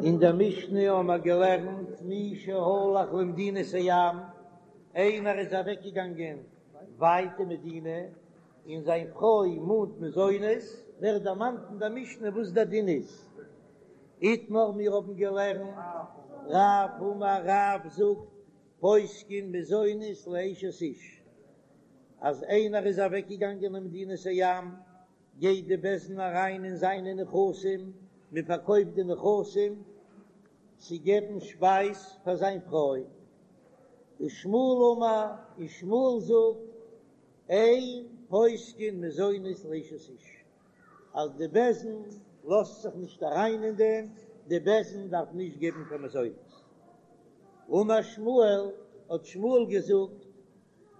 אין דער משנה האבן מיר געלערנט מי שהלך למדינת הים, איינער איז אוועקגעגאנגען ווייט אין מדינה, און זיין פרוי מאנט מזונות, ווערט דערמאנט אין דער משנה וואס דער דין איז. איתמר מיר האבן געלערנט, רב אמר רב זאגט, פוסקין מזונות לאשת איש, אז איינער איז אוועקגעגאנגען אין מדינת הים, גייט די בית דין אריין אין זיינע נכסים, מען פארקויפט די נכסים צו געבן שפייז פאר זיין פרוי. ושמואל אמר, און שמואל זאגט, אין פוסקין מזונות לאשת איש, אז די בית דין לאזט זיך נישט אריין אין דעם, די בית דין דארף נישט געבן קיין מזונות. אמר שמואל, האט שמואל געזאגט,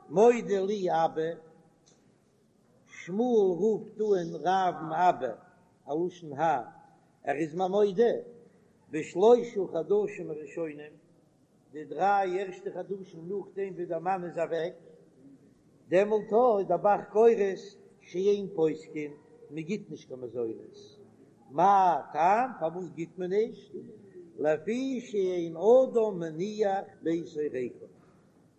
מודה לי אבא, שמואל רופט אן רב'ן אבא, א לשון האר, ער איז מיר מודה, בשלושה חדשים הראשונים, די דריי ערשטע חדשים נאכדעם ווי דער מאן איז אוועק, דעמאלט איז דער ב"ח גורס שאין פוסקין, מען גיט נישט קיין מזונות, מה טעם פארוואס גיט מען נישט, לפי שאין אדם מניח ביתו ריקם,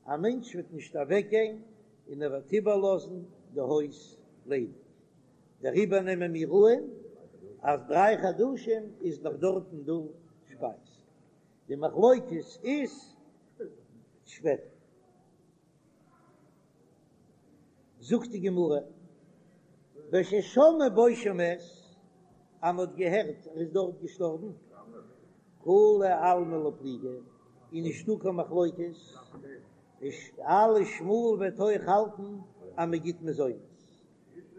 א מענטש וועט נישט אוועקגיין און ער וועט איבערלאזן די הויז ליידיג, דעריבער נעמען מיר אן אז דריי חדשים איז נאך דארטן דא שפייז, די מחלוקת איז שפעטער. זאגט די גמרא, בששמעו בו שמת, אז מען האט געהערט ער איז דארט געשטארבן, כולי עלמא לא פליגי, איז נישטא קיין מחלוקת, אלע שמואל וועט אויך האלטן אז מען גיט מזונות.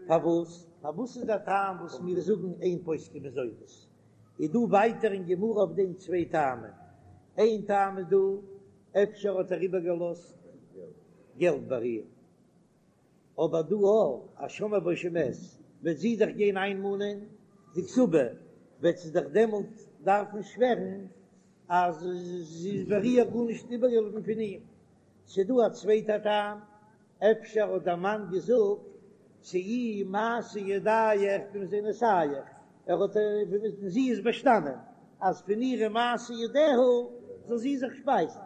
פארוואס? פארוואס איז דער טעם וואס מיר זאגן אין פוסקין מזונות? איז דא ווייטער אין גמרא אויף דעם צוויי טעמים. איין טעם איז דא, אפשר האט ער איבערגעלאזט געלט ביי איר, אבער דא אויך אז שמעו בו שמת וועט זי דאך גיין איינמאנען די כתובה, וועט זי דאך דעמאלט דארפן שווערן אז ס'איז ביי איר גארנישט איבערגעבליבן פון אים. ס'דא א צווייטע טעם, אפשר האט דער מאן געזאגט צאי מעשה ידייך במזונותייך, ער האט און זי איז באשטאנען אז פון אירע מעשה ידיה זאל זי זיך שפייזן,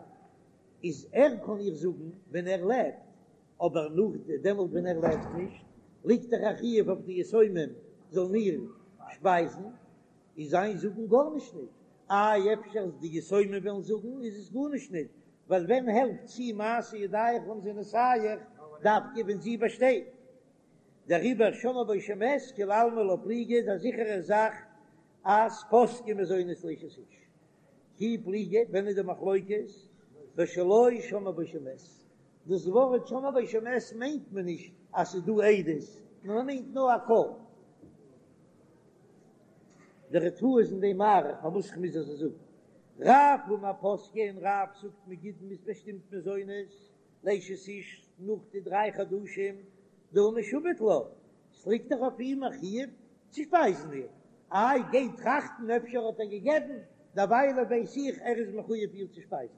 איז ער קען איר זאגן ווען ער לעבט, אבער נאך דעמאלט ווען ער לעבט נישט, ליגט דאך א חיוב אויף די יתומים זאלן איר שפייזן, איז זיין זאגן גארנישט ניט. איי אפשר די יתומים וועלן זאגן איז עס גארנישט ניט, ווייל ווען העלפט צאי מעשה ידייך במזונותייך דווקא ווען זי באשטייט. דעריבער שמעו בו שמת כולי עלמא לא פליגי איז א זיכערע זאך אז פוסקין מזונות לאשת איש. כי פליגי, ווען איז די מחלוקת? בשלא שמעו בו שמת. דאס ווארט שמעו בו שמת מיינט מען נישט אז ס'איז דא עדות, נאר מען מיינט נאר א קול. דער ריטב"א איז אין דעם מאריך פארוואס איך מוז אזוי זאגן. רב אמר פוסקין, רב זאגט מ'גיט מ'איז באשטימט מזונות לאשת איש נאך די דריי חדשים דהא משועבד לה, ס'ליגט דאך אויף אים א חיוב צו שפייזן איר, איי גיי טראכטן אפשר האט ער געגעבן, דערוויילע ווייס איך ער איז מחויב איר צו שפייזן.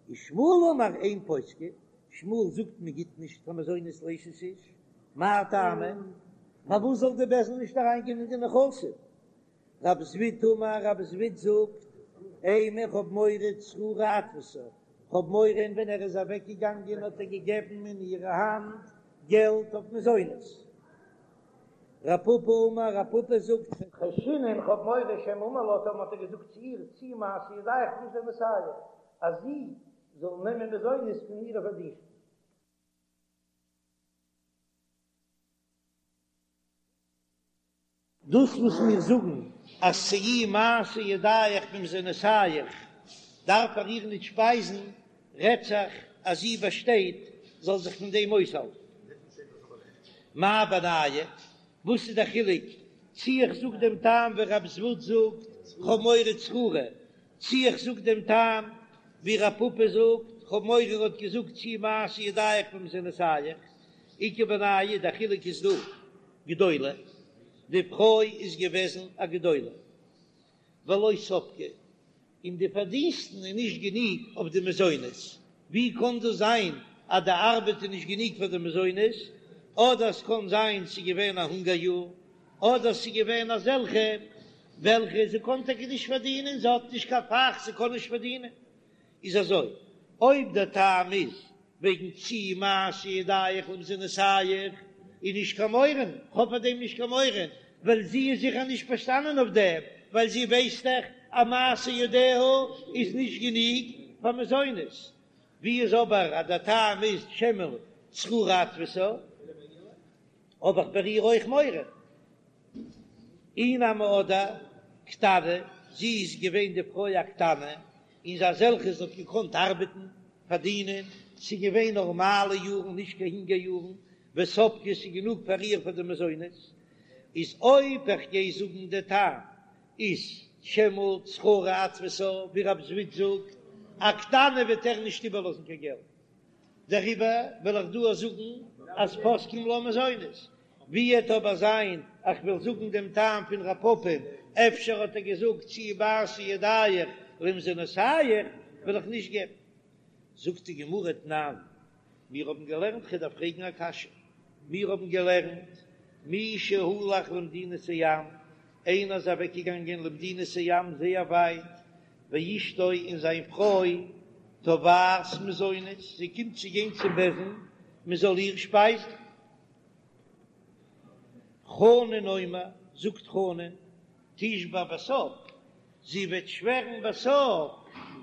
ושמואל אמר אין פוסקין, שמואל זאגט מען גיט נישט קיין מזונות לאשת איש, מאי טעמא? פארוואס זאל די בית דין נישט אריינגיין אין די נכסים? רב זביד אמר, רב זביד זאגט, אימא איך האב מורא צררי אתפסה, כ'האב מורא און ווען ער איז אוועק געגאנגען האט ער געגעבן אין אירע האנט געלט אויף מזונות. רב פפא אמר, רב פפא זאגט, חיישינן כ'האב מורא שמא אמר לה טאמער האט ער געזאגט צו איר צאי מעשה ידייך במזונותייך אז זי זאל נעמען מזונות פון אירע פארדינסטן. דאס וואס מיר זאגן אז צאי מעשה ידייך במזונותייך דארף ער איר ניט שפייזן, רעדט זיך אז זי באשטייט זאל זיך פון דעם אויסהאלטן. מאי בינייהו? וואס איז דער חילוק צי איך זאג דעם טעם ווי רב זביד זאגט כ'האב מורא צררי, צי איך זאג דעם טעם ווי רב פפא זאגט כ'האב מורא ער האט געזאגט צאי מעשה ידייך במזונותייך, איכא בינייהו דער חילוק איז דא גדולה, די פרוי איז געוועזן א גדולה ולא ספקה, און די פארדינסטן איז נישט גענוג אויף די מזונות, ווי קען דאס זיין אז די ארבעט איז נישט גענוג פאר די מזונות, אדער עס קען זיין ס'איז געווען א הונגער יאר, אדער ס'איז געווען אזעלכע. וועלכע זי קען טאקע נישט פארדינען, זי האט נישט קיין פאך, זי קען נישט פארדינען. איז אזוי, אויב דער טעם איז וועגן צאי מעשה ידיך למזונותיך, איז נישט קיין מורא, כ'האב פאר דעם נישט קיין מורא, ווייל זי איז זיכער נישט באשטאנען אויף דעם, ווייל זי ווייסט דאך אז מעשה ידיה איז נישט גענוג פאר מזונות. ווי איז אבער אז דער טעם איז שמא צרורה אתפסה, האב איך ביי איר אויך מורא. אי נמי אדער קטנה, זי איז געווען די פרוי א קטנה, און זי אזעלכע זי האט געקאנט ארבעטן, פארדינען, ס'איז געווען נארמאלע יארן נישט קיין הונגער יארן, וספקה ס'איז גענוג פאר איר פאר די מזונות, איז אויב איך גיי זאגן די טעם איז שמא צרורה אתפסה, ווי רב זביד זאגט, א קטנה וועט ער נישט איבערלאזן קיין געלט, דעריבער וועל איך דא זאגן אז פוסקים לה מזונות, ווי עט אבער זיין איך וועל זאגן דעם טעם פון רב פפא, אפשר האט ער געזאגט צאי מעשה ידיך למזונותיך, וועל איך נישט געבן. זאגט די גמרא תנן, מיר האבן געלערנט כ'דארף פרעגן א קשיא, מיר האבן געלערנט מי שהלך למדינת הים, איינער איז אוועקגעגאנגען למדינת הים זייער ווייט, ואשתו און זיין פרוי תובעת מזונות, זי קומט צו גיין צום בית דין מען זאל איר שפייזן. חנן אומר, זאגט חנן, תשבע בסוף, זי וועט שווערן בסוף,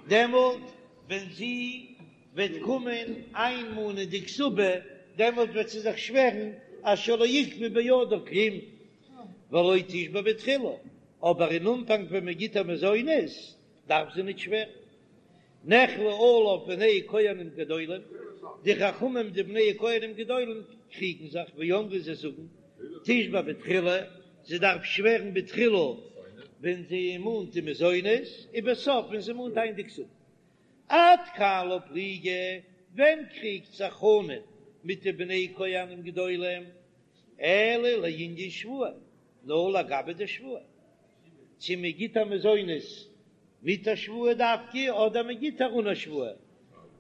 דעמאלט ווען זי וועט קומען איינמאנען די כתובה, דעמאלט וועט זי זיך שווערן אז שלא עיכבו בידה כלום, ולא תשבע בתחילה, אבער אין אנפאנג ווען מען גיט איר מזונות דארף זי ניט שווערן. נחלקו עליו בני כהנים גדולים, די חכמים די בני כהנים גדולים קריגן זיך, ואמרו זיי זאגן, תשבע בתחילה, זי דארף שווערן בתחילה ווען זי מאנט די מזונות, ובסוף ווען זי מאנט איין די כתובה. עד כאן לא פליגי, ווען קריגט זיך חנן מיט די בני כהנים גדולים? אלא לענין שבועה, נאר לגבי די שבועה, צו מען גיט איר מזונות מיט א שבועה דווקא אדער מען גיט איר אן א שבועה,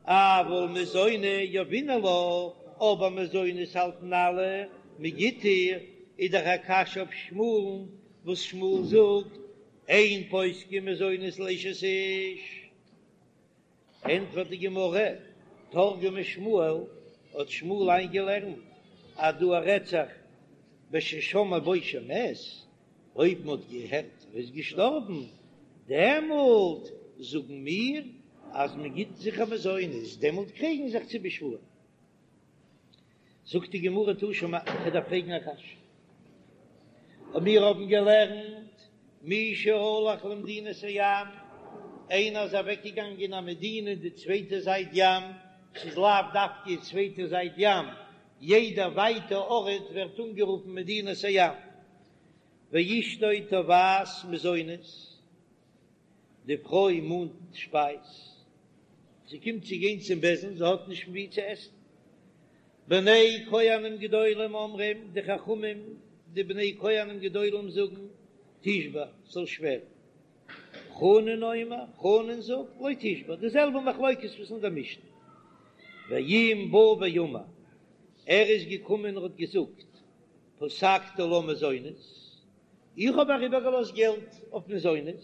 אבל מזוני יהבינן לה, אבער מזונות האלטן אלע מען גיט איר, איז דאך א קשיא אויף שמואל'ן וואס שמואל זאגט אין פוסקין מזונות לאשת איש. ענטפערט די גמרא, תרגמה שמואל, האט שמואל איינגעלערנט אז דא רעדט זיך בששמעו בו שמת, אויב מען האט געהערט ער איז געשטארבן, דעמאלט זאגן מיר אז מען גיט זיכער מזונות, דעמאלט קריגן זיך צו בשבועה. זאגט די גמרא תא שמע, כ'דארף פרעגן א קשיא. און מיר האבן געלערנט מי שהלך למדינת הים, איינער איז אוועקגעגאנגען אין א מדינה אין די צווייטע זייט ים, ס'איז לאו דווקא די צווייטע זייט ים, יעדע ווייטע ארט ווערט אנגערופן מדינת הים, ואשתו תובעת מזונות, די פרוי מאנט שפייז, זי קומט צו גיין צום בית דין, זי האט נישט פון וואו צו עסן. בני כהנים גדולים אומרים, די חכמים די בני כהנים גדולים זאגן, תשבע, זאל שווערן. חנן אומר, חנן זאגט, לא תשבע, די זעלבע מחלוקת וואס אין דער משנה. ואם בא ואמר, ער איז געקומען און האט געזאגט, פסקתי לה מזונות, איך האב אריבערגעלאזט געלט אויף מזונות,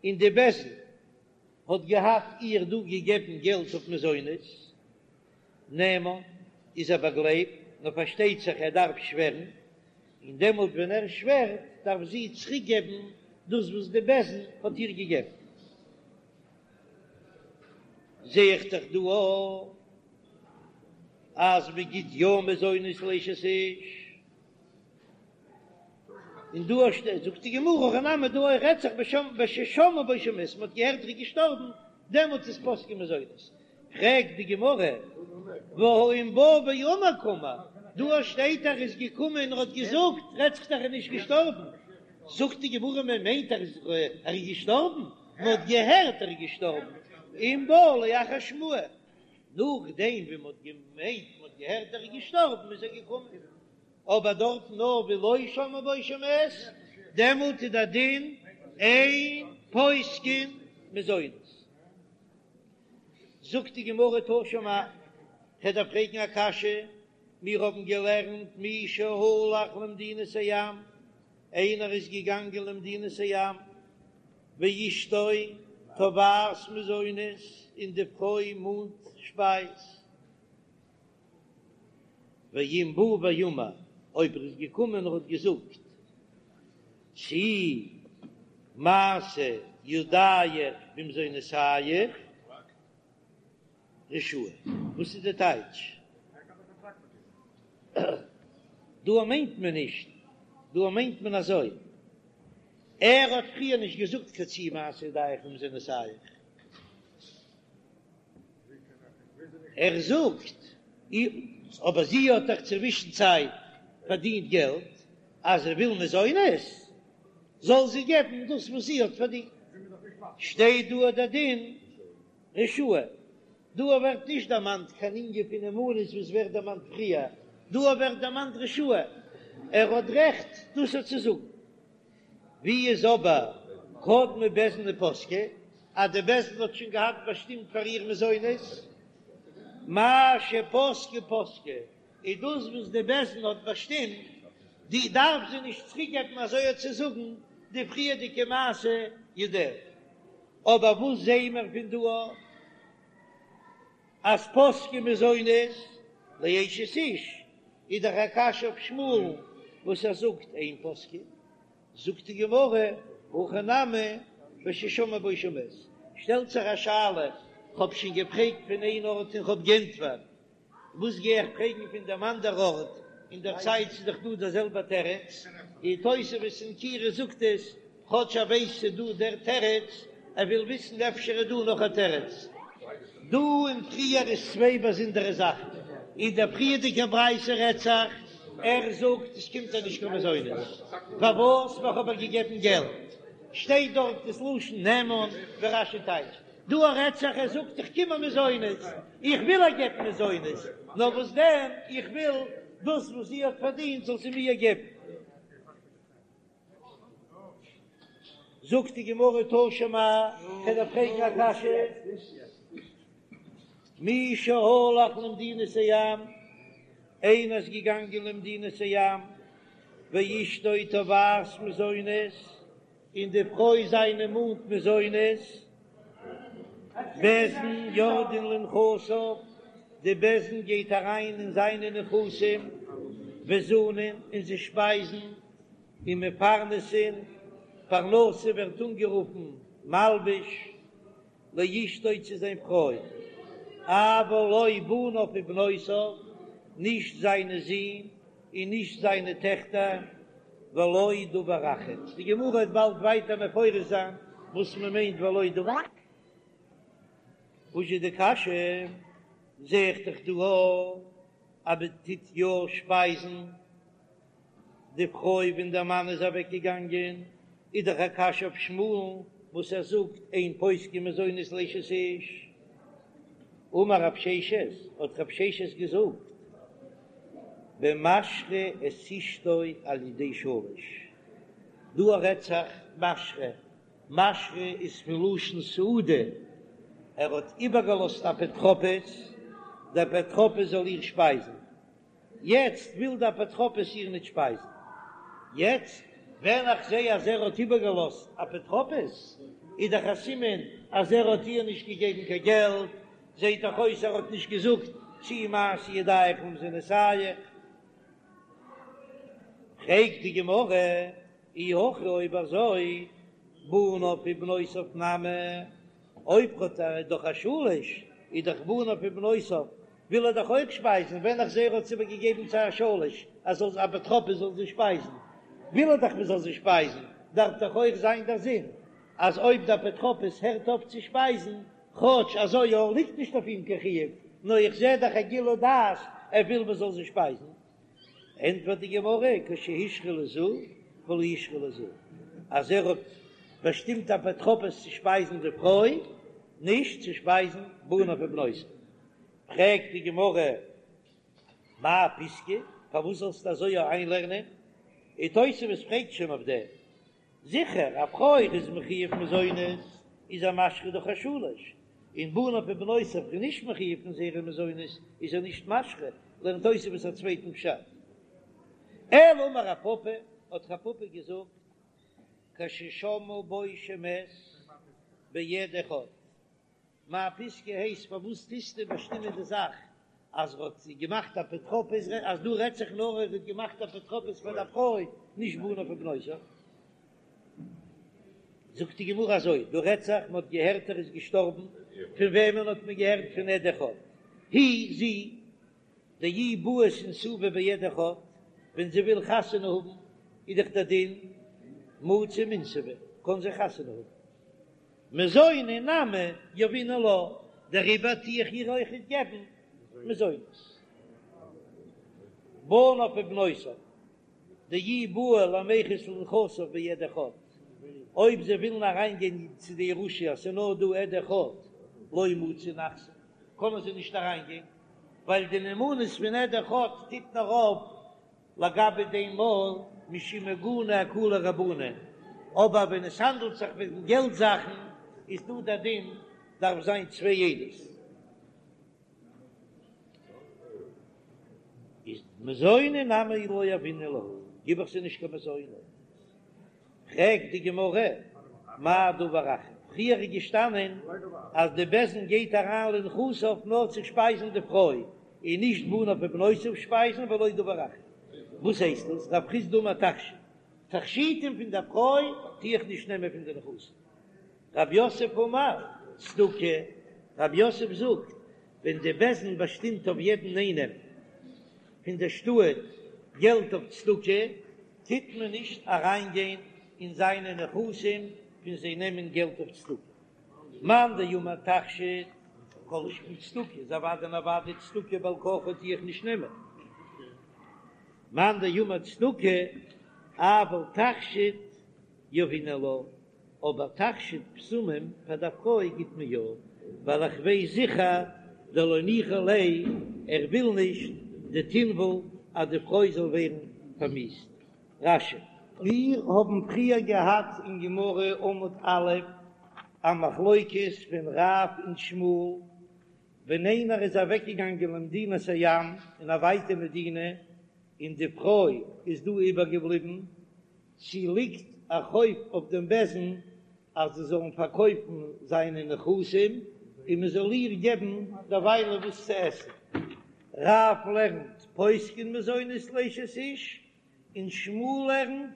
און די בית דין האט געהאט איר דא געגעבן געלט אויף מזונות, נאמן איז ער באגלייבט, נאר פארשטייט זיך ער דארף שווערן, און דעמאלט ווען ער שווערט דארף זי צוריק געבן דאס וואס די בית דין האט איר געגעבן. זע איך דאך דא אויך אז מען גיט יא מזונות לאשת איש. און דא שטייט זאגט די גמרא הכא נמי דא אויך רעדט זיך בששמעו בו שמת מען האט געהערט ער איז געשטארבן דעמאלטס איז פוסקין מזונות פרעגט די גמרא והא אם בא ואמר קאמר דא שטייט ער איז געקומען און האט געזאגט רעדט זיך דאך ער איז נישט געשטארבן זאגט די גמרא מען מיינט ער איז ער איז געשטארבן מען האט געהערט ער איז געשטארבן אם בא לאחר שמועה נאכדעם ווי מען האט געמיינט מען האט געהערט ער איז געשטארבן איז ער געקומען. אבער דארט נאר ווי לא שמעו בו שמת, דעמאלט איז דער דין אין פוסקין מזונות. זאגט די גמרא תא שמע, כ'דארף פרעגן א קשיא, מיר האבן געלערנט מי שהלך למדינת הים. איינער איז געגאנגען למדינת הים, ואשתו תובעת מזונות, און די פרוי מאנט שפייז. ואם בא ואמר, אויב ער איז געקומען און האט געזאגט, צאי מעשה ידיך במזונותיך, רשאי. וואס איז די טייטש? דא מיינט מען נישט, דא מיינט מען אזוי, ער האט פריער נישט געזאגט קיין צאי מעשה ידיך במזונותיך, ער זאגט, אבער זי האט דאך צווישן צייט פארדינט געלט, אז זי וויל מזונות, זאל זי געבן דאס וואס זי האט פארדינט. שטייט דא דער דין רשאי, דא ווערט נישט דערמאנט קיין ענין פון נאמנות וואס ווערט דערמאנט פריער, דא ווערט דערמאנט רשאי, ער האט רעכט דאס צו זאגן. ווי איז אבער קדמו בית דין ופסקו אז די בית דין האט שוין געהאט באשטימט פאר איר מזונות, מה שפסקו פסקו, איז דאס וואס די בית דין האט באשטימט, די דארף זי נישט צוריקגעבן אזוי צו זאגן די פריערדיגע מעשה ידיה. אבער וואס זעען מיר פון דא אז פוסקין מזונות לאשת איש איז דאך א קשיא אויף שמואל'ן וואס ער זאגט אין פוסקין, זאגט די גמרא הכא נמי בששמעו בו שמת, שטעלט זיך א שאלה, כ'האב שוין געפרעגט פון איין ארט און כ'האב גענטפערט, וואס גיי איך פרעגן פון דעם אנדער ארט, אין דער צייט ס'איז דאך דא דער זעלבער תירוץ, און תוספות אין קירה זאגט עס, כאטש ער ווייסט ס'איז דא דער תירוץ, ער וויל וויסן אפשר איז דא נאך א תירוץ. דא און פריער איז צוויי באזונדערע זאכן, אין דער פריערדיגער ברייתא רעדט זיך, ער זאגט עס קומט איר נישט קיין מזונות, פארוואס ווייל כ'האב איר געגעבן געלט, שטייט דארט דאס לשון נאמן ווי רש"י טייטשט, דא רעדט זיך ער זאגט איך קום איר מזונות, איך וויל איר געבן מזונות, נאר וואס דען איך וויל דאס וואס זי האט פארדינט זאל זי מיר געבן. זאגט די גמרא תא שמע, כ'וועל דיר פרעגן א קשיא, מי שהלך למדינת הים, איינער איז געגאנגען למדינת הים, ואשתו תובעת מזונות, און די פרוי זיינע מאנט מזונות, בית דין יורדין לנכסיו, די בית דין גייט אריין אין זיינע נכסים, וזנין, און זיי שפייזן, ומפרנסין, פרנסה ווערט אנגערופן מלבוש, לאשתו צו זיין פרוי, אבל לא בניו ובנותיו, נישט זיינע זין און נישט זיינע טעכטער, ולא דבר אחר. די גמרא וועט באלד ווייטער מפרש זיין וואס מען מיינט ולא דבר. וואס איז די קשיא? זע איך דאך דא אז מען טוט יא שפייזן די פרוי ווען דער מאן איז אוועק געגאנגען, איז דאך א קשיא אויף שמואל'ן וואס ער זאגט אין פוסקין מזונות לאשת איש. אמר רב ששת, האט רב ששת געזאגט, במשרה את אשתו על ידי שליש, דא רעדט זיך משרה, משרה איז פון לשון סעודה, ער האט איבערגעלאזט אפוטרופוס, דער אפוטרופוס זאל איר שפייזן, יעצט וויל די אפוטרופוס איר ניט שפייזן. יעצט ווען איך זע אז ער האט איבערגעלאזט אפוטרופוס, איז דאך א סימן אז ער האט איר נישט געגעבן קיין געלט, זעט דאך אויס ער האט נישט געזאגט צאי מעשה ידיך במזונותיך. פרעגט די גמרא, אי הכי אויב אזוי בניו ובנותיו נמי, אויב האט ער דאך א שליש איז דאך בניו ובנותיו וויל ער דאך אויך שפייזן, ווען איך זע ער האט עס איבערגעגעבן צו א שליש אז זאל אפוטרופוס זאל זיי שפייזן, וויל ער דאך מען זאל זיי שפייזן, דארף דאך אויך זיין דער זין אז אויב דער אפוטרופוס הערט אויף צו שפייזן, כאטש אזוי יא ליגט נישט אויף אים קיין חיוב, נאר איך זע דאך א גילוי דעת ער וויל מען זאל זיי שפייזן. ענטפערט די גמרא, כשהשרה לזו ולא השרה לזו, אז ער האט באשטימט אפוטרופוס צו שפייזן די פרוי, נישט צו שפייזן בניו ובנותיו. פרעגט די גמרא, מאי פסקא, פארוואס זאלסטו אזוי איינלערנען? און תוספות פרעגט שוין אויף דעם, זיכער א פרוי איז מחויב מזונות איז ער משרה דורך א שליש, און בניו ובנותיו איז נישט מחויב פון זייערע מזונות איז ער נישט משרה, לערנט תוספות א צווייטן פשט. אלא אמר רב פפא. האט רב פפא געזאגט, כששמעו בו שמת בעד אחד, מיין פיסקא הייסט פארוואס טוסטו באשטימען די זאך אז ער האט געמאכט אפוטרופוס אז דא רעדט זיך נאר ער האט געמאכט אפוטרופוס פאר די פרוי נישט בניו ובנותיו. זאגט די גמרא אזוי דא רעדט זיך מען האט געהערט ער איז געשטארבן פון וועמען האט מען געהערט פון עד אחד היא זי דאי בעית אינסובי בעד אחד ווען זי וויל חתונה האבן איז דאך דער דין מצי מינסבא קען זי חתונה האבן. מזוני נמי יהבינן לה, דעריבער טו איך איר אויכעט געבן מזונות. בניו ובנותיו, דאי בעו למיחת לנכסיו בעד אחד, אויב זיי ווילן אריינגיין צו די ירושה אז ס'איז נאר דא עד אחד, לא מצו נחתי, קענען זיי נישט אריינגיין, ווייל די נאמנות פון עד אחד טוט נאר אויף לגבי דעם מאל משום עיגונא אקילו רבנן, אבער ווען עס האנדלט זיך וועגן געלט זאכן איז דא דער דין דארף זיין צוויי עדות. איז מזוני נמי לא יהבינן להו, גיב איך זיי נישט קיין מזונות. פרעגט די גמרא, מאי דבר אחר, פריער איז געשטאנען אז די בית דין גייט אריין לנכסיו נאר צו שפייזן די פרוי, און נישט בניו ובנותיו שפייזן ולא דבר אחר, וואס הייסט דאס רב חסדא אמר תכשיט, תכשיטים פון די פרוי טו איך נישט נעמען פון די נכסים, רב יוסף אמר צדקה, רב יוסף זאגט ווען די בית דין באשטימט אויף יעדן איינעם פון די שטאט געלט אויף צדקה, טוט מען נישט אריינגיין אין זיינע נכסים פון זיי נעמען געלט אויף צדקה. מאן דאמר תכשיט כל שכן צדקה איז אוודאי און אוודאי צדקה בעל כרחה טו איך נישט נעמען. מאן דאמר צדקה אבל תכשיט יהבינן לה, אבער תכשיט בשמים פאר די פרוי גיט מען יא, ווייל איך ווייס זיכער דלא ניחא ליה, ער וויל נישט דתינוול אז די פרוי זאל ווערן פארמיאוסט. רש"י. מיר האבן פריער געהאט אין גמרא עמוד א' א מחלוקת פון רב און שמואל, ווען איינער איז אוועקגעגאנגען למדינת הים אין א ווייטע מדינה און די פרוי איז דא איבערגעבליבן, צי ליגט א חוב אויף דעם בית דין אז זיי זאלן פארקויפן זיינע נכסים און מען זאל איר געבן דערוויילע וואס צו עסן. רב לערנט פוסקין מזונות לאשת איש, און שמואל לערנט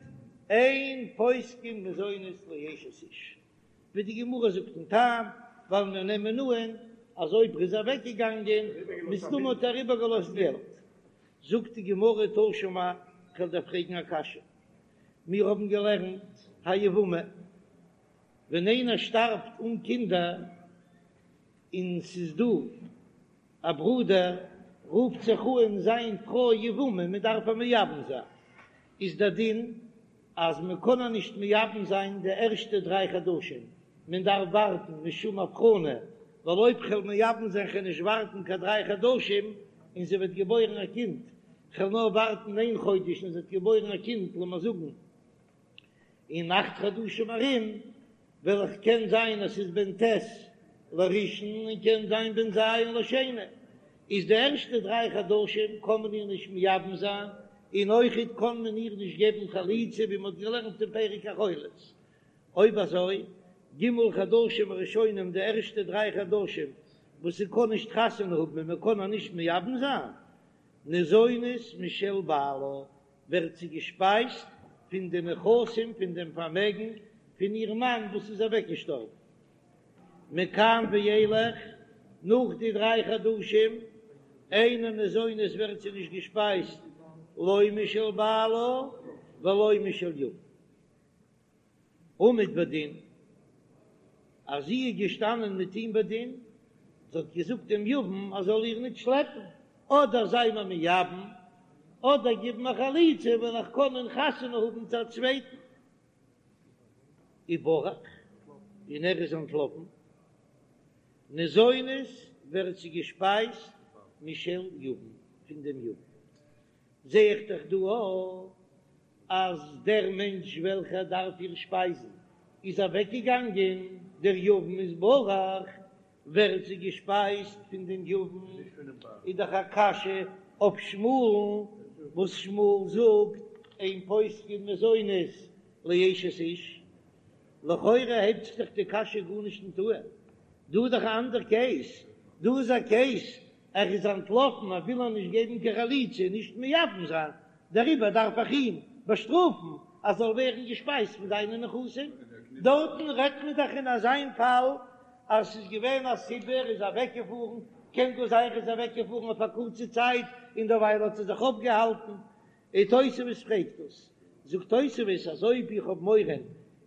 אין פוסקין מזונות לאשת איש. ווי די גמרא זאגט דעם טעם, ווייל מיר נעמען אן אז אויב ער איז אוועקגעגאנגען מסתמא האט ער איבערגעלאזט געלט. זאגט די גמרא תא שמע, כ'וועל דיר פרעגן א קשיא, מיר האבן געלערנט היבמה, ווען איינער שטארבט אן קינדער און ס'איז דא א ברודער, רופט זיך אן זיין פרוי יבמה, מען דארף איר מייבם זיין, איז דער דין אז מען קען איר נישט מייבם זיין די ערשטע דריי חדשים, מען דארף ווארטן משום הבחנה, ווייל אויב כ'וועל מייבם זיין כ'וועל נישט ווארטן קיין דריי חדשים און זי וועט געבוירן א קינד, כ'וועל נאר ווארטן איין חודש און זי וועט געבוירן א קינד, לאמיר זאגן אין אכט חדשים ארום, וועל איך קען זיין אז ס'איז בן ט' לראשון און קען זיין בן ז' לשני, איז די ערשטע דריי חדשים קען מען איר נישט מייבם זיין, און אויכעט קען מען איר נישט געבן חליצה ווי מ'האט געלערנט אין פרק החולץ. אויב אזוי, ג' חדשים הראשונים די ערשטע דריי חדשים וואס זי קען נישט חתונה האבן און מ'קען איר נישט מייבם זיין, ניזונת משל בעלה, ווערט זי געשפייזט פון די נכסים פון דעם פארמעגן פון איר מאן וואס איז אוועקגעשטארבן. מכאן ואילך, נאך די דריי חדשים, אינה ניזונת ווערט זי נישט געשפייזט לא משל בעלה ולא משל יבם. עמד בדין, אז זי איז געשטאנען מיט אים בדין, זי האט געזאגט דעם יבם אז זאל איר ניט שלעפן, אדער זיי מיר מייבם, אדער גיב מיר חליצה וועל איך קענען חתונה האבן צו א צווייטן. וברח, און ער איז אנטלאפן. ניזונת ווערט זי געשפייזט משל יבם, פון דעם יבם. זע איך דאך דא אויך אז דער מענטש וועלכער דארף איר שפייזן איז אוועקגעגאנגען, דער יבם איז ברח, ווערט זי געשפייזט פון דעם יבם, איז דאך א קשיא אויף שמואל'ן וואס שמואל זאגט. אין פוסקין מזונות לאשת איש? לכאורה הייבט זיך דאך די קשיא גארנישט נישט אן, דא איז דאך א אנדער קעיס, דא איז א קעיס ער איז אנטלאפן ער וויל איר נישט געבן קיין חליצה נישט מייבם זיין, דעריבער דארף איך אים באשטראפן אז זאל ווערן געשפייזט פון זיינע נכסים, דארטן רעדט מען דאך אין אזיין פאל אז ס'איז געווען א סיבה ער איז אוועקגעפארן, קען גאר זיין ער איז אוועקגעפארן אויף א קורצע צייט און דערווייל האט ער זיך אויפגעהאלטן, און תוספות פרעגט דאס, זאגט תוספות אז אויב איך האב מורא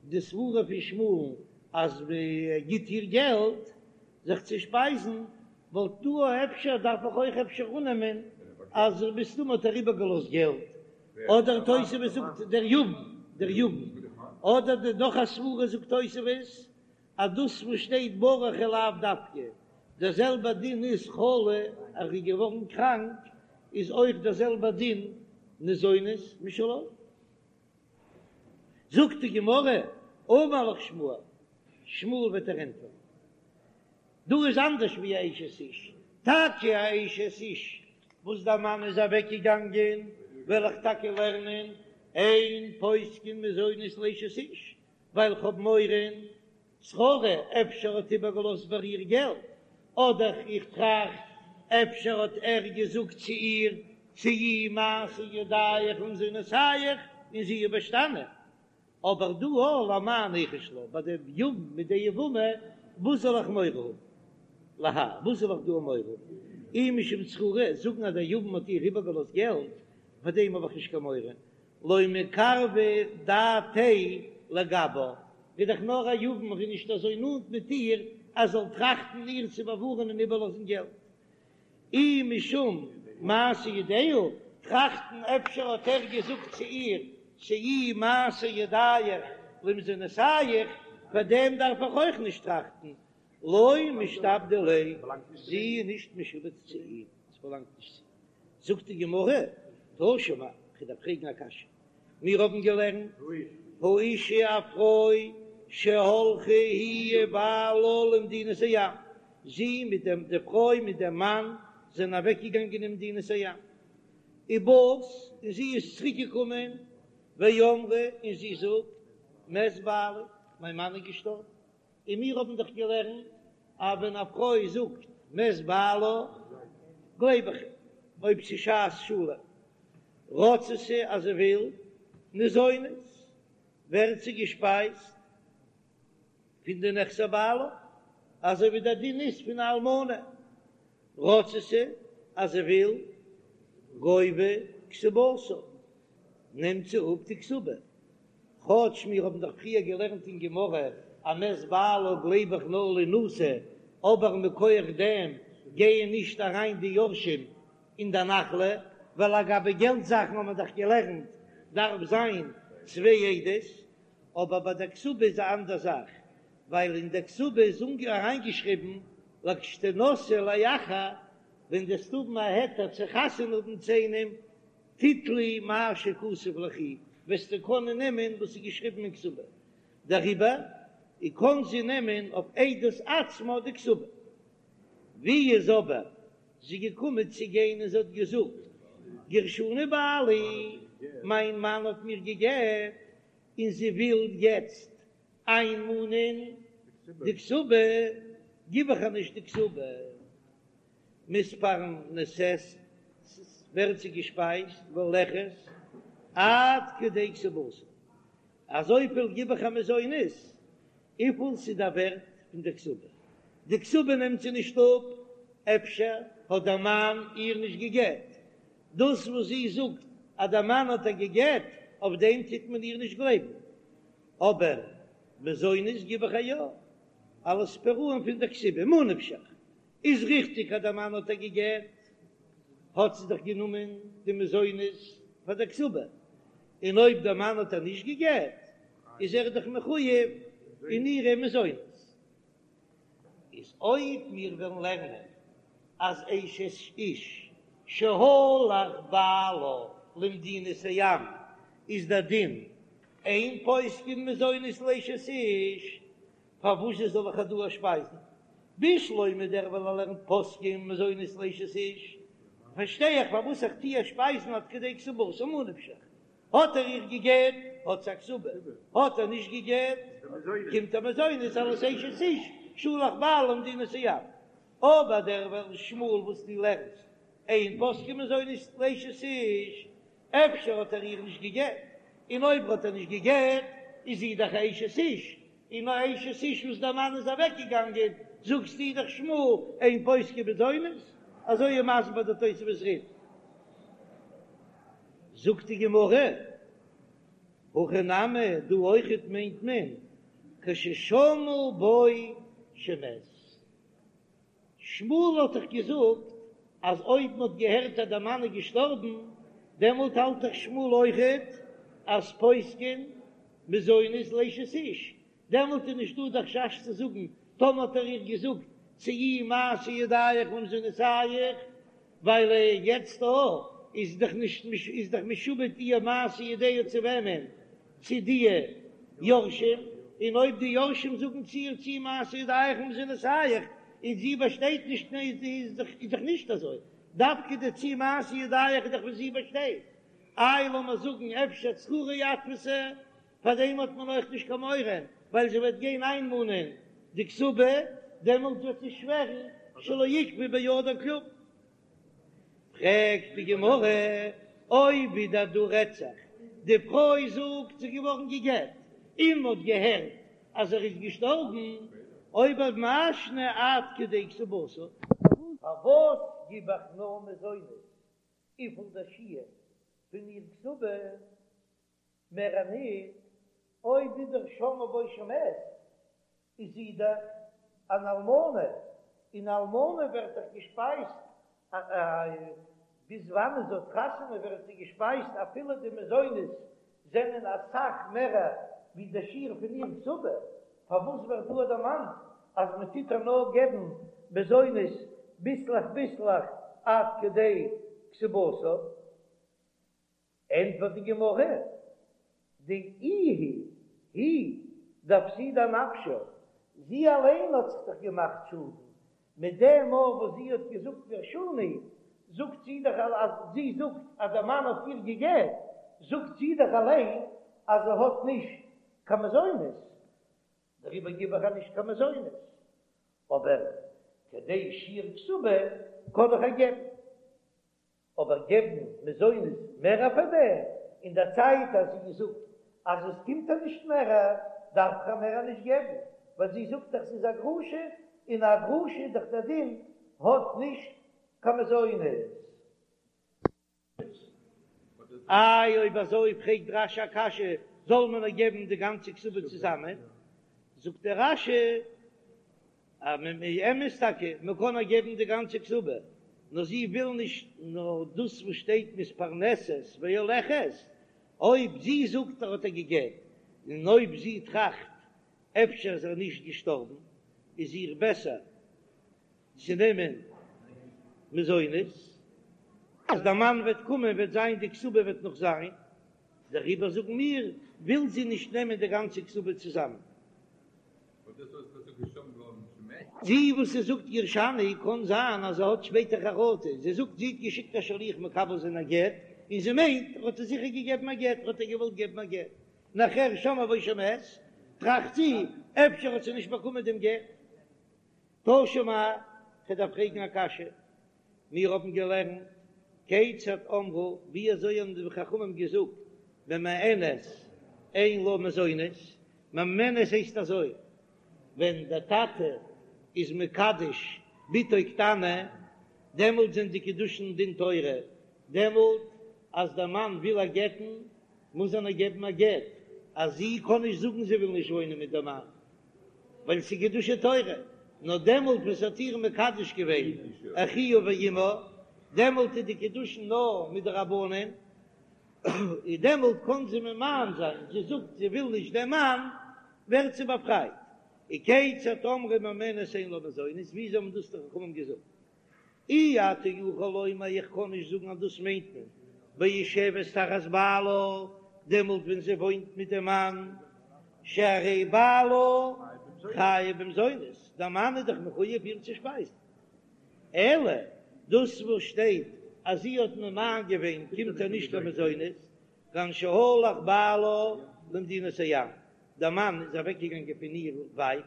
די סברה פון שמואל'ן אז מ'גיט איר געלט זיך צו שפייזן, וואלט דא אפשר דארף איך אויך אפשר אננעמען אז מסתמא האט ער איבערגעלאזט געלט, אדער תוספות זאגט דער יבם, דער יבם, אדער די נאך א סברה זאגט תוספות אז דאס וואס שטייט ברח איז לאו דווקא, דער זעלבער דין איז חלה אז ער איז געווארן קראנק איז אויך דער זעלבער דין ניזונת משלו. זאגט די גמרא, אמר לך שמואל, שמואל וועט דיר ענטפערן, דא איז אנדערש ווי א אשת איש, טאקע א אשת איש וואס דער מאן איז אוועק געגאנגען, וועל איך טאקע לערנען אין פוסקין מזונות לאשת איש, ווייל כ'האב מורא שררה, אפשר האט איבערגעלאזט ביי איר געלט, אדער איך טראכט אפשר האט ער געזאגט צו איר צאי מעשה ידיך למזונותיך און זי איז באשטאנען, אבער דא הא למאי ניחוש לה, ביי די יבם מיט די יבמה, וואס זאל איך מורא האבן? להאי, וואס זאל איך דא מורא האבן? אי משום שררה, זאגן אז דער יבם האט איר איבערגעלאזט געלט, פאר דעם האב איך נישט קיין מורא, לא מיקרבא דעתיה לגבה, איז דאך נאר א יבם, ער איז נישט אזוי נאנט מיט איר אז זאל טראכטן איר צו באווארענען און איבערלאזן געלט. אי משום מעשה ידיה, טראכטן אפשר האט ער געזאגט צו איר צאי מעשה ידיך למזונותיך, פאר דעם דארף איך אויך נישט טראכטן, לא משתעבדא ליה, זי איז נישט משועבד צו אים, עס באלאנגט נישט צו אים. זאגט די גמרא, תא שמע, כ'דארף פרעגן א קשיא, מיר האבן געלערנט, האשה א פרוי שהלכה היא ובעלה למדינת הים, זי מיט דעם, די פרוי מיט דעם מאן זענען אוועקגעגאנגען אין מדינת הים, ובאת, און זי איז צוריק געקומען, ואמרה, און זי זאגט, מת בעלי, מיין מאן איז געשטארבן. און מיר האבן דאך געלערנט אז ווען א פרוי זאגט מת בעלה גלייב איך איר, אויב ס'איז שעת שלום רצתה אז זי וויל ניזונת ווערט זי געשפייזט פון די נכסי בעלה, אזוי ווי דער דין איז פון א אלמנה, רצתה אז זי וויל גובה כתובתה נעמט זי אפ די כתובה. כאטש מיר האבן דאך פריער געלערנט אין גמרא אז מת בעלה גלייב איך נאר לינשא, אבער מכח דעם גייען נישט אריין די יורשים אין די נחלה, ווייל לגבי געלט זאכן האבן מיר דאך געלערנט דארף זיין צוויי עדות, אבער ביי די כתובה איז א אנדער זאך, ווייל אין די כתובה איז אריינגעשריבן לכשתנשאי לאחר, ווען דו וועסט האבן א היתר צו חתונה האבן צו איינעם, תיטלי מה שכתוב ליכי, וועסטו קענען נעמען וואס איז געשריבן אין כתובה, דעריבער קען זי נעמען אויף עדות עצמה די כתובה. ווי איז אבער זי געקומען צו גיין און זי האט געזאגט, גירשני בעלי, מיין מאן האט מיר גע'גט, און זי וויל יעצט איינמאנען די כתובה, גיב איך איר נישט די כתובה. מתפרנסת, ווערט זי געשפייזט והולכת עד כדי כתובתה, אזויפיל גיב איך איר מזונות וויפיל ס'איז דער ווערט פון די כתובה, די כתובה נעמט זי נישט אפ, אפשר האט דער מאן איר נישט געגעט, דאס וואס זי זאגט אז דער מאן האט איר געגעט, אויף דעם טוט מען איר נישט גלייבן, אבער מזונות גיב איך איר יא, אלס פירעון פון דער כתובה, ממה נפשך, איז ריכטיג אז דער מאן האט איר געגעט, האט זי דאך גענומען די מזונות פאר דער כתובה, און אויב דער מאן האט איר נישט געגעט, איז ער דאך מחויב אין אירע מזונות. איז אויב מיר וועלן לערנען אז אשת איש שהלך בעלה למדינת הים איז דער דין אין פוסקין מזונות לאשת איש, פארוואס זאל איך איר דא שפייזן? בשלמא דער וועלכער לערנט פוסקין מזונות לאשת איש, פארשטיי איך פארוואס איך טו איר שפייזן עד כדי כתובתה ממה נפשך. האט ער איר געגעט האט זי א כתובה, האט ער נישט געגעט קומט איר מזונות אלס אשת איש שלח בעלה למדינת הים. אבער דער שמואל וואס דו לערנסט אין פוסקין מזונות לאשת איש, אפשר האט ער איר נישט געגעט, און אויב האט ער נישט געגעט איז זי דאך א אשת איש, און א אשת איש וואס דער מאן איז אוועק געגאנגען, זאגסטו דאך שמואל אין פוסקין מזונות, אזוי איז מסביר דער תוספות רי"ד. זאגט די גמרא, הכא נמי, דא אויכעט מיינט מען כששמעו בו שמת. שמואל האט דאך געזאגט אז אויב מען האט געהערט אז דער מאן איז געשטארבן, דעמאלט האלט דאך שמואל אויכעט אז פוסקין מזונות לאשת איש, דעמאלט איז נישטא דער חשש צו זאגן טאמער האט ער איר געזאגט צאי מעשה ידיך למזונותיך, ווייל יעצט דא איז דאך נישט איז דאך משועבד איר מעשה ידיה צו וועמען? צו די יורשים, און אויב די יורשים זאגן צו איר צאי מעשה ידיך למזונותיך און זי באשטייט נישט איז דאך נישט אזוי, דווקא די צאי מעשה ידיך איז דאך וואס זי באשטייט, איי לאמיר זאגן אפשר צררי אתפסה, פאר דעם האט מען אויך נישט קיין מורא, ווייל זי וועט גיין איינמאנען די כתובה, דעמאלט וועט זי שווערן שלא עיכבו בידה כלום. פרעגט די גמרא, אויב ווידער דא רעדט זיך, די פרוי זאגט זי איז געווארן גע'גט, און מ'האט געהערט אז ער איז געשטארבן, אויב אזוי מאי שנא עד כדי כתובתה, פארוואס גיב איך נאר מזונות וויפיל דער שיעור פון איר כתובה? מער ניט, אויב ווידער שמעו בו שמת, איז זי דאך אן אלמנה, און אלמנה ווערט דאך געשפייזט, ביז וואנען זי האט חתונה ווערט זי געשפייזט אפילו די מזונות זענען אסאך מערער ווי די שיעור פון איר כתובה, פארוואס ווערט דא דערמאנט אז מען טוט איר נאר געבן מזונות ביסלעך ביסלעך עד כדי כתובתה? ענטפערט די גמרא, דאיהי היא דאפסידה אנפשה, זי אליין האט זיך דאך געמאכט שאדן, מיט דעם מאל וואס זי האט געזאגט גרשני, זאגט זי דאך אז זי זאגט אז דער מאן האט איר גע'גט, זאגט זי דאך אליין אז זי האט נישט קיין מזונות, דעריבער גיב איך איר נישט קיין מזונות, אבער כדי שיעור כתובה קען איך איר געבן. אבער געבן מזונות מער פאר דעם, אין דער צייט אז זי זאגט אז עס קומט איר נישט מער, דארף איך איר מער נישט געבן, ווייל זי זאגט דאך ס'איז א גרושה, און א גרושה איז דאך דער דין האט נישט קיין מזונות. איי אויב אזוי פרעגט רש"י א קשיא, זאל מען איר געבן די גאנצע כתובה צוזאמען? זאגט דער רש"י אז מ מ אמת טאקע, מען קען איר געבן די גאנצע כתובה, נאר זי וויל נישט נאר דאס וואס שטייט מתפרנסת והולכת, אויב זי זאגט ער האט איר גע'גט, און אויב זי טראכט אפשר איז ער נישט געשטארבן, איז איר בעסער צו נעמען מזונות, אז דער מאן וועט קומען וועט זיין די כתובה וועט נאך זיין, דעריבער זאגן מיר וויל זי נישט נעמען די גאנצע כתובה צוזאמען. זי וואס זי זאגט גרשני קאן זיין אז זי האט שפעטער חרטה, זי זאגט זי האט געשיקט א שליח מקבל זיין א גט, און זי מיינט ער האט איר זיכער געגעבן א גט, האט ער געוואלט געבן א גט, נאכער שמעו בו שמת, טראכט זי אפשר האט זי נישט באקומען דעם גט. תא שמע, כ'דארף פרעגן א קשיא, מיר האבן געלערנט, כיצד אמרו, ווי אזוי האבן די חכמים געזאגט, ממאנת אין לה מזונות, ממאנת הייסט אזוי, ווען דער טאטע איז מקדש בתו קטנה, דעמאלט זענען די קידושין דין תורה, דעמאלט אז דער מאן וויל איר גט'ן, מוז ער איר געבן א גט, אז זי קען נישט זאגן זי וויל נישט וואוינען מיט דעם מאן, ווייל ס'איז קידושי תורה, נאר דעמאלט וואס האט איר מקדש געווען אחיה ואמה, דעמאלט איז די קידושין נאר מדרבנן, און דעמאלט קען זי ממאן זיין, זי זאגט זי וויל נישט דעם מאן, ווערט זי באפרייט. וכיצד אמרו ממאנת אין לה מזונות, וויאזוי האבן דאס די חכמים געזאגט? אי אתה יכול לומר איך קען נישט זאגן אז דאס מיינט מען ביושבת תחת בעלה, דעמאלט ווען זי וואוינט מיט דעם מאן, שהרי בעלה חייב במזונות, דער מאן איז דאך מחויב איר צו שפייזן, אלא דאס וואס שטייט אז זי האט ממאן געווען קומט איר נישט קיין מזונות. כגון שהלך בעלה למדינת הים, דער מאן איז אוועקגעגאנגען פון איר ווייט,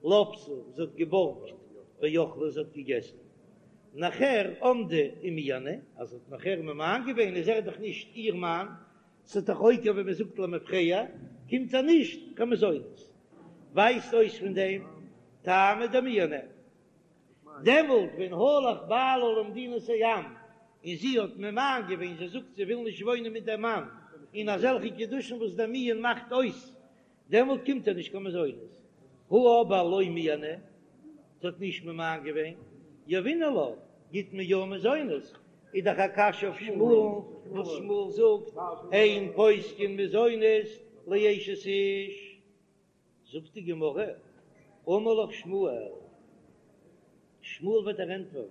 לוותה, זי האט געבארגט, ואכלה, זי האט געגעסן. נאכער עמדה ומיאנה, אז זי האט נאכער ממאן געווען איז ער דאך נישט איר מאן, ס'איז דאך עוקר ווי מ'זאגט למפרע, קומט ער נישט קיין מזונות. ווייזט אויס פון דעם טעמא דמיאנה. דעמאלט ווען הלך בעלה למדינת הים און זי האט ממאן געווען, זי זאגט זי וויל נישט וואוינען מיט דעם מאן, און אזעלכע קידושין וואס דער מיאון מאכט אויס, דעמאלט קומט איר נישט קיין מזונות. הא אבער לא מיאנה, זי האט נישט ממאן געווען, יהבינן לה, גיט מען יא מזונות, איז דאך א קשיא אויף שמואל'ן וואס שמואל זאגט אין פוסקין מזונות לאשת איש. זאגט די גמרא, אמר לך שמואל, שמואל וועט דיר ענטפערן,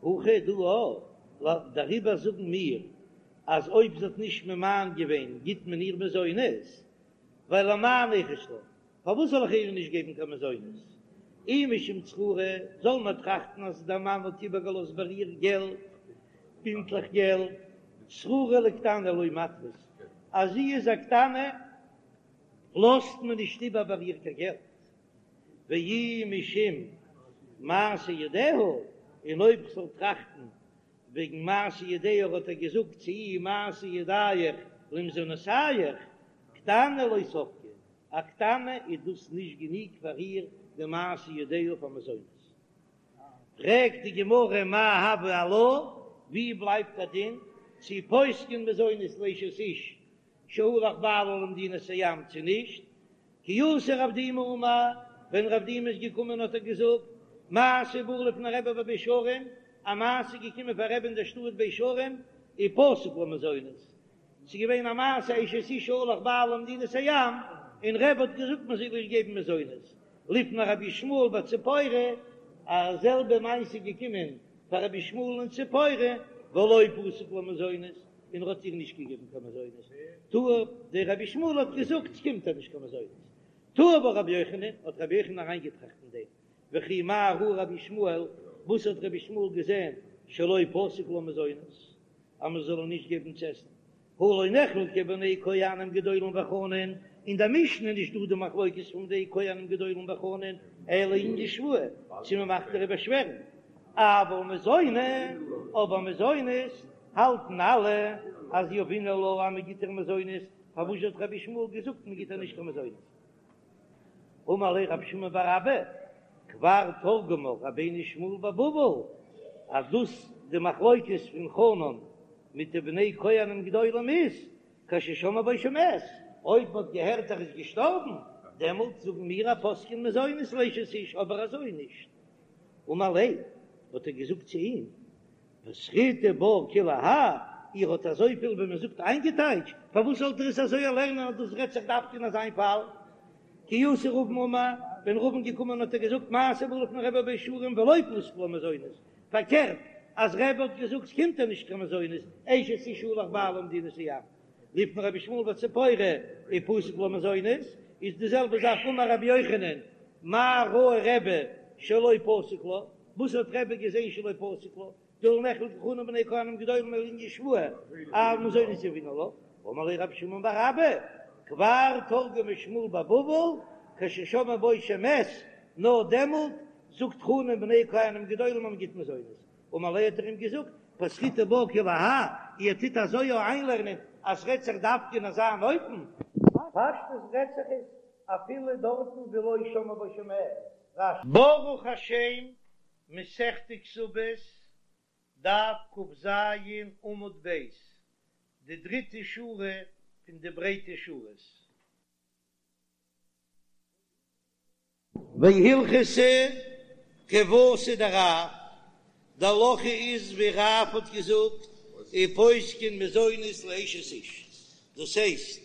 הכא דא א, דעריבער זאגן מיר אז אויב זי האט נישט ממאן געווען גיט מען איר מזונות, ווייל למאי ניחוש לה, פארוואס זאל איך איר נישט געבן קיין מזונות? אי משום צררי, זאל מען טראכטן אז דער מאן האט איבערגעלאזט ביי איר געלט, בינטלעך געלט, צררי לקטנה לא מתפיס, אז זי איז א קטנה לאזט מען נישט איבער ביי איר קיין געלט, ואי משום מעשה ידיה, און אויב כ'זאל טראכטן וועגן מעשה ידיה האט ער געזאגט צו איר מעשה ידיך למזונותיך, קטנה לא ספקא, א קטנה איז דאס נישט גענוג פאר איר די מעשה ידיה פאר מזונות. פרעגט די גמרא מאי הוי עלה, ווי בלייבט א דין צו פוסקין מזונות לאשת איש שהלך בעלה למדינת הים צו נישט, כי אתא רב דימי אמר, ווען רב דימי איז געקומען האט ער געזאגט, מעשה בא לפני רבי בבית שערים, א מעשה איז געקומען פאר רבי אין דער שטאט בית שערים, ופסק לה מזונות, ס'איז געווען א מעשה אשת איש שהלך בעלה למדינת הים, און רבי האט געזאגט מען זאל איר געבן מזונות, לפני רבי ישמעאל בציפורי, א זעלבע מעשה איז געקומען פאר רבי ישמעאל אין ציפורי, ולא פסק לה מזונות, און ער האט איר נישט געגעבן קיין מזונות, טעה, דער רבי ישמעאל האט געזאגט ס'קומט איר נישט קיין מזונות, טעה בה רבי יוחנן, האט רבי יוחנן אריינגעטראכט אין דעם, וכי מה ראה רבי ישמעאל, וואס האט רבי ישמעאל געזען שלא פסק לה מזונות, אז מען זאל איר נישט געבן צו עסן, הא לא נחלקו בני כהנים גדולים וחנן, אין דער משנה איז נישט דא די מחלוקת פון די כהנים גדולים וחנן, אלא לענין שבועה, צו מען מאכט איר באשווערן, אבל מזוני, אבער מזונות האלטן אלע אז יהבינן לה אז מען גיט איר מזונות, פארוואס האט רבי ישמעאל געזאגט מען גיט איר נישט קיין מזונות? אמר ליה רב שמן בר אבא, כבר תרגמה רבינו שמואל בבבל, אז דאס די מחלוקת פון חנן מיט די בני כהנים גדולים איז כששמעו בו שמת, אויב מען האט געהערט ער איז געשטארבן, דעמאלט זאגן מיר אז פוסקין מזונות לאשת איש, אבער אזוי נישט. אמר ליה, האט ער געזאגט צו אים, פתחיתו בה כולי האי, איר האט אזויפיל ווי מען זאגט איינגעטייטשט, פארוואס זאלט איר עס אזוי לערנען אז דאס רעדט זיך דווקא אין אזיין פאל? כי אתא רבין אמר, ווען רבין געקומען האט ער געזאגט מעשה בא לפני רבי בבית שערים ולא פסק לה מזונות, פארקערט אז רבי האט געזאגט ס'קומט איר נישט קיין מזונות, אשת איש שהלך בעלה למדינת הים, לפני רבי ישמעאל בציפורי ופסק לה מזונות, איז די זעלבע זאך אמר רבי יוחנן מה ראה רבי שלא פסק לה, וואס האט רבי געזען שלא פסק לה, דהא לא נחלקו חנן ובני כהנים גדולים אלא לענין שבועה, אבל מזונות יהבינן לה, אמר ליה רב שמן בר אבא, כבר תרגמה שמואל בבבל, כששמעו בו שמת, נאר דעמאלט זאגט חנן ובני כהנים גדולים אז מען גיט מזונות, אמר ליה האט ער אים געזאגט, פתחיתו בה כולי האי, איר טוט אזוי יא איינלערנען אז ס'רעדט זיך דווקא אין אזא אן אופן? פשטות רעדט זיך עס אפילו דארטן ווי לא שמעו בו שמת. רש"י. ברוך השם, מסכת כתובות, דף כ"ז עמוד ב', די דריטע שורה פון די ברייטע שורות. והלכתא כוותיה דרב, די הלכה איז ווי רב האט געזאגט, ופוסקין מזונות לאשת איש, דאס הייסט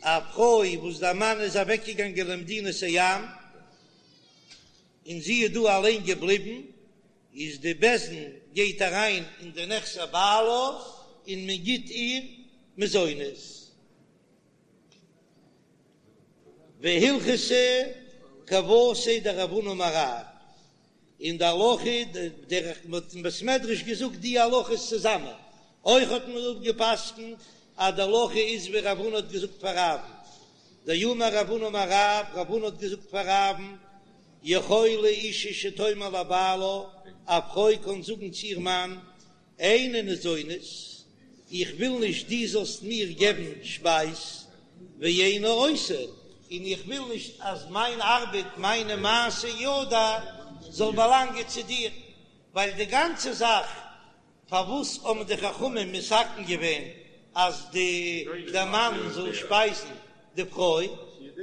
א פרוי וואס דער מאן איז אוועקגעגאנגען למדינת הים און זי איז דא אליין געבליבן, איז די בית דין גייט אריין אין די נכסי בעלה און מען גיט איר מזונות. והלכתא כוותיה דרב הונא אמר רב, און די הלכה דרך מ'האט אין בית מדרש געזאגט די הלכות צוזאמען, אויך האט מען אפגע'פסק'נט. אז די הלכה איז ווי רב הונא האט געזאגט פאר רב'ן, דאמר רב הונא אמר רב, רב הונא האט געזאגט פאר רב'ן, יכולה אישה שתאמר לבעלה, א פרוי קען זאגן צו איר מאן, איני ניזונית, איך וויל נישט דו זאלסט מיר געבן שפייז, ואיני עושה, און איך וויל נישט אז מיין ארבעט, מיינע מעשי ידי, זאל באלאנגען צו דיר, ווייל די גאנצע זאך פארוואס האבן די חכמים מתקן געווען אז די דער מאן זאל שפייזן די פרוי,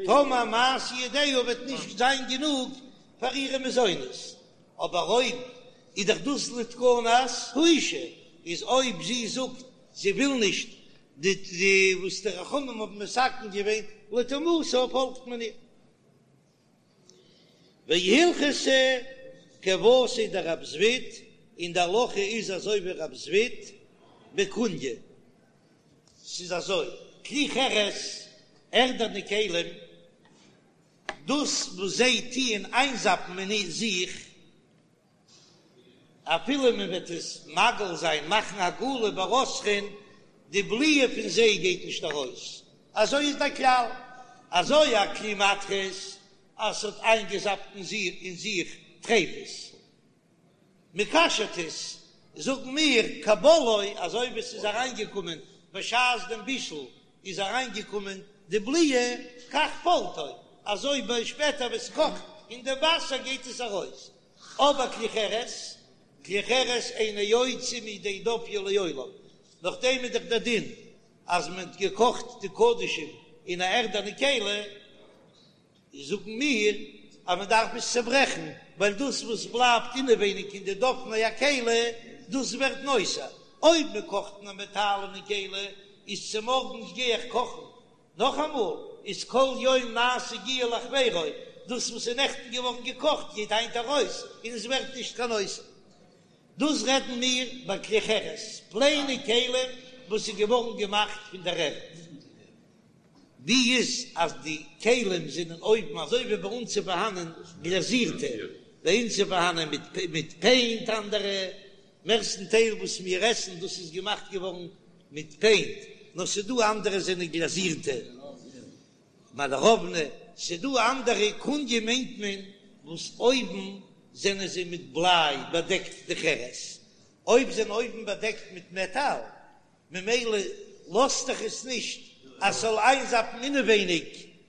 טאמער מעשי ידיה וועט נישט זיין גענוג פאר אירע מזונות, אבער אויב איז דאך דאס לתקנת האישה, איז אויב זי זאגט זי וויל נישט די די וואס די חכמים האבן מתקן געווען לטומאתה פאלגט מען איר. והלכתא כוותיה דרב זביד, און די הלכה איז אזוי ווי רב זביד בקוניא, ס'איז אזוי, כלי חרס, ערדענע כלים, דאס וואס זיי טוען איינזאפן אין זיך, אפילו מען וועט עס מגעיל זיין, מאכן הגעלה ברותחין, די בליעה פון זיי גייט נישט ארויס, אזוי איז דער כלל, אזוי א כלי מתכות אז ס'האט איינגעזאפט אין זיך טריפות, מ'כשר'ט עס, זאגן מיר כבולעו, אזוי ווי ס'איז אריינגעקומען בשעת דעם בישול איז אריינגעקומען די בליעה, כך פולטו, אזוי ביי שפעטער ווען ס'קאכט אין די וואסער גייט עס ארויס, אבער כלי חרס, כלי חרס אינו יוצא מידי דופיו לעולם, נאכדעם איז דאך דער דין אז מען האט געקאכט די קדשים אין א ערדענע כלי, זאגן מיר אז מען דארף עס צעברעכן, ווייל דאס וואס בלייבט אינעווייניג אין די דופני הכלי, דאס ווערט נותר. אויב מען קאכט אין א מעטאלענע כלי, איז צומארגנס גיי איך קאכן נאכאמאל, איז כל יום נעשה גיעול לחבירו, דאס וואס איז נעכטן געווארן געקאכט גייט היינט ארויס און עס ווערט נישט קיין נותר. דאס רעדן מיר ביי כלי חרס, פלעינע כלים וואס איז געווארן געמאכט פון דער ערד. ווי איז אז די כלים זענען אויבן אזוי ווי ביי אונז איז פארהאנען גלאזירטע, ביי אונז איז פארהאנען מיט פעינט אנדערע, מערסטן טייל וואס מיר עסן דאס איז געמאכט געווארן מיט פעינט, נאר ס'דא אנדערע זענען גלאזירטע, מאלעראוונע, ס'דא אנדערע קוניא מיינט מען וואס אויבן זענען זיי מיט בליי באדעקט די חרס, אויב זענען אויבן באדעקט מיט מעטאל ממילא לאזט דאך עס נישט אז ס'זאל איינזאפן אינעווייניג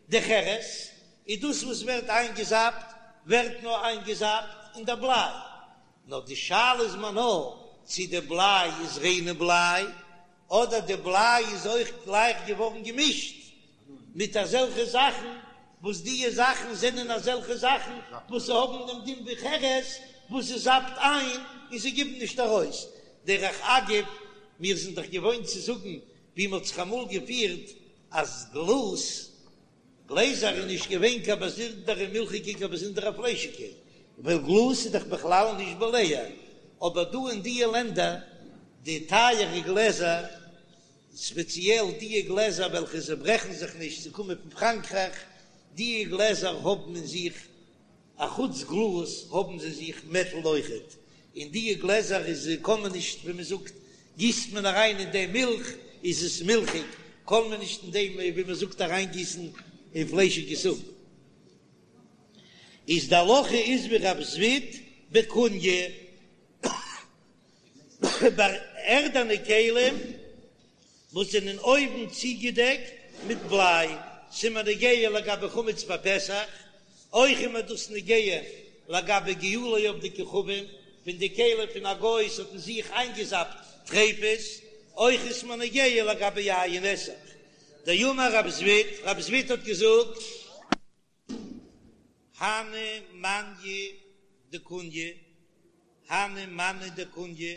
די חרס, איז דאס וואס ווערט איינגעזאפט ווערט נאר איינגעזאפט אין די בליי, נאר די שאלה איז מיר נאר צו די בליי איז ריינע בליי אדער די בליי איז אויך גלייך געווארן געמישט מיט אזעלכע זאכן וואס דיע זאכן זענען אזעלכע זאכן וואס האבן דעם דין ווי חרס וואס עס זאפט איין און זיי גיבן נישט ארויס. דרך אגב, מיר זענען דאך געוואוינט צו זאגן ווי מען האט זיך אמאל געפירט אז גלאז, גלעזער איז נישט געווען קיין באזונדערע מילכיגע קיין באזונדערע פליישיגע, ווייל גלאז איז דאך בכלל נישט בולע, אבער דא אין דיע לענדער די טייערע גלעזער, ספעציעל דיע גלעזער וועלכע זיי ברעכן זיך נישט זיי קומען פון פראנקרייך, דיע גלעזער האבן אין זיך אחוץ גלאז האבן זיי זיך מעטל אויכעט, אין דיע גלעזער איז קען מען נישט ווי מען זאגט גיסט מען אריין אין דעם מילך איז עס מילכיג, קען מען נישט אין דעם ווי מען זאגט אריין גיסן אין פליישיגע זופ. איז די הלכה איז ווי רב זביד בקוניא. ביי ערדענע כלים וואס זענען אויבן צוגעדעקט מיט בליי, ס'איז מיר נוגע לגבי חמץ בפסח, אויך איז מיר דאס נוגע לגבי גיעולי עובדי כוכבים, פון די כלים פון א גוי ס'האט אין זיך איינגעזאפט טריפות, אויך איז מיר נוגע לגבי יין נסך. דאמר רב זביד, רב זביד האט געזאגט. הני מאני דקוניא, הני מאני דקוניא,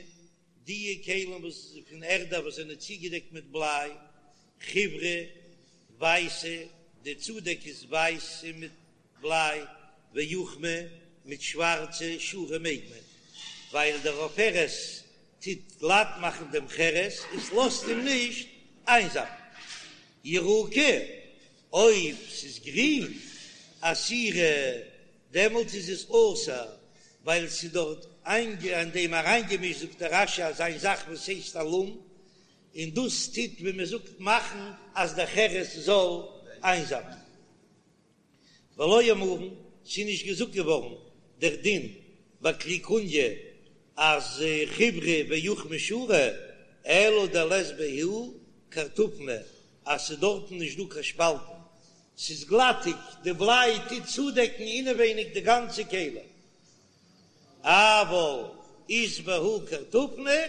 דיע כלים וואס פון ערדע וואס זענען צוגעדעקט מיט בליי, חיורי, ווייסע, די צודעק איז ווייסע מיט בליי, ואוכמי, מיט שווארצע, שרי מעג מען, ווייל דער עופרת טוט גלאט מאכן דעם חרס, עס לאזט אים נישט איינזאפן. ירוקי, אויב ס'איז גרין, אסירי, דעמאלטס איז עס אסור, ווייל ס'איז דארט אין דעם אריינגעמישט, זאגט דער רש"י אזא זאך וואס הייסט אלום. און דאס טוט ווי מען זאגט מאכן אז דער חרס זאל איינזאפן. ולא אמרן, ס'איז נישט געזאגט געווארן דער דין ביי כלי קוניא אז חיוורא ואוכמא שרי, אלא דלית בהו קרטופני, אז ס'איז דארטן נישט דא קיין שפאלטן, ס'איז גלאטיג, די בליי טוט צודעקן אינעווייניג די גאנצע כלי. אבל אית בהו קרטופני,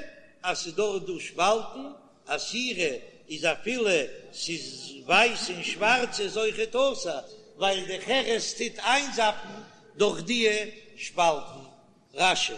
אז ס'איז דארט דא שפאלטן, אסירא איז אפילו ס'איז ווייס און שווארץ איז אויכעט אסור, ווייל די חרס טוט איינזאפן דורך דיע שפאלטן. רש"י.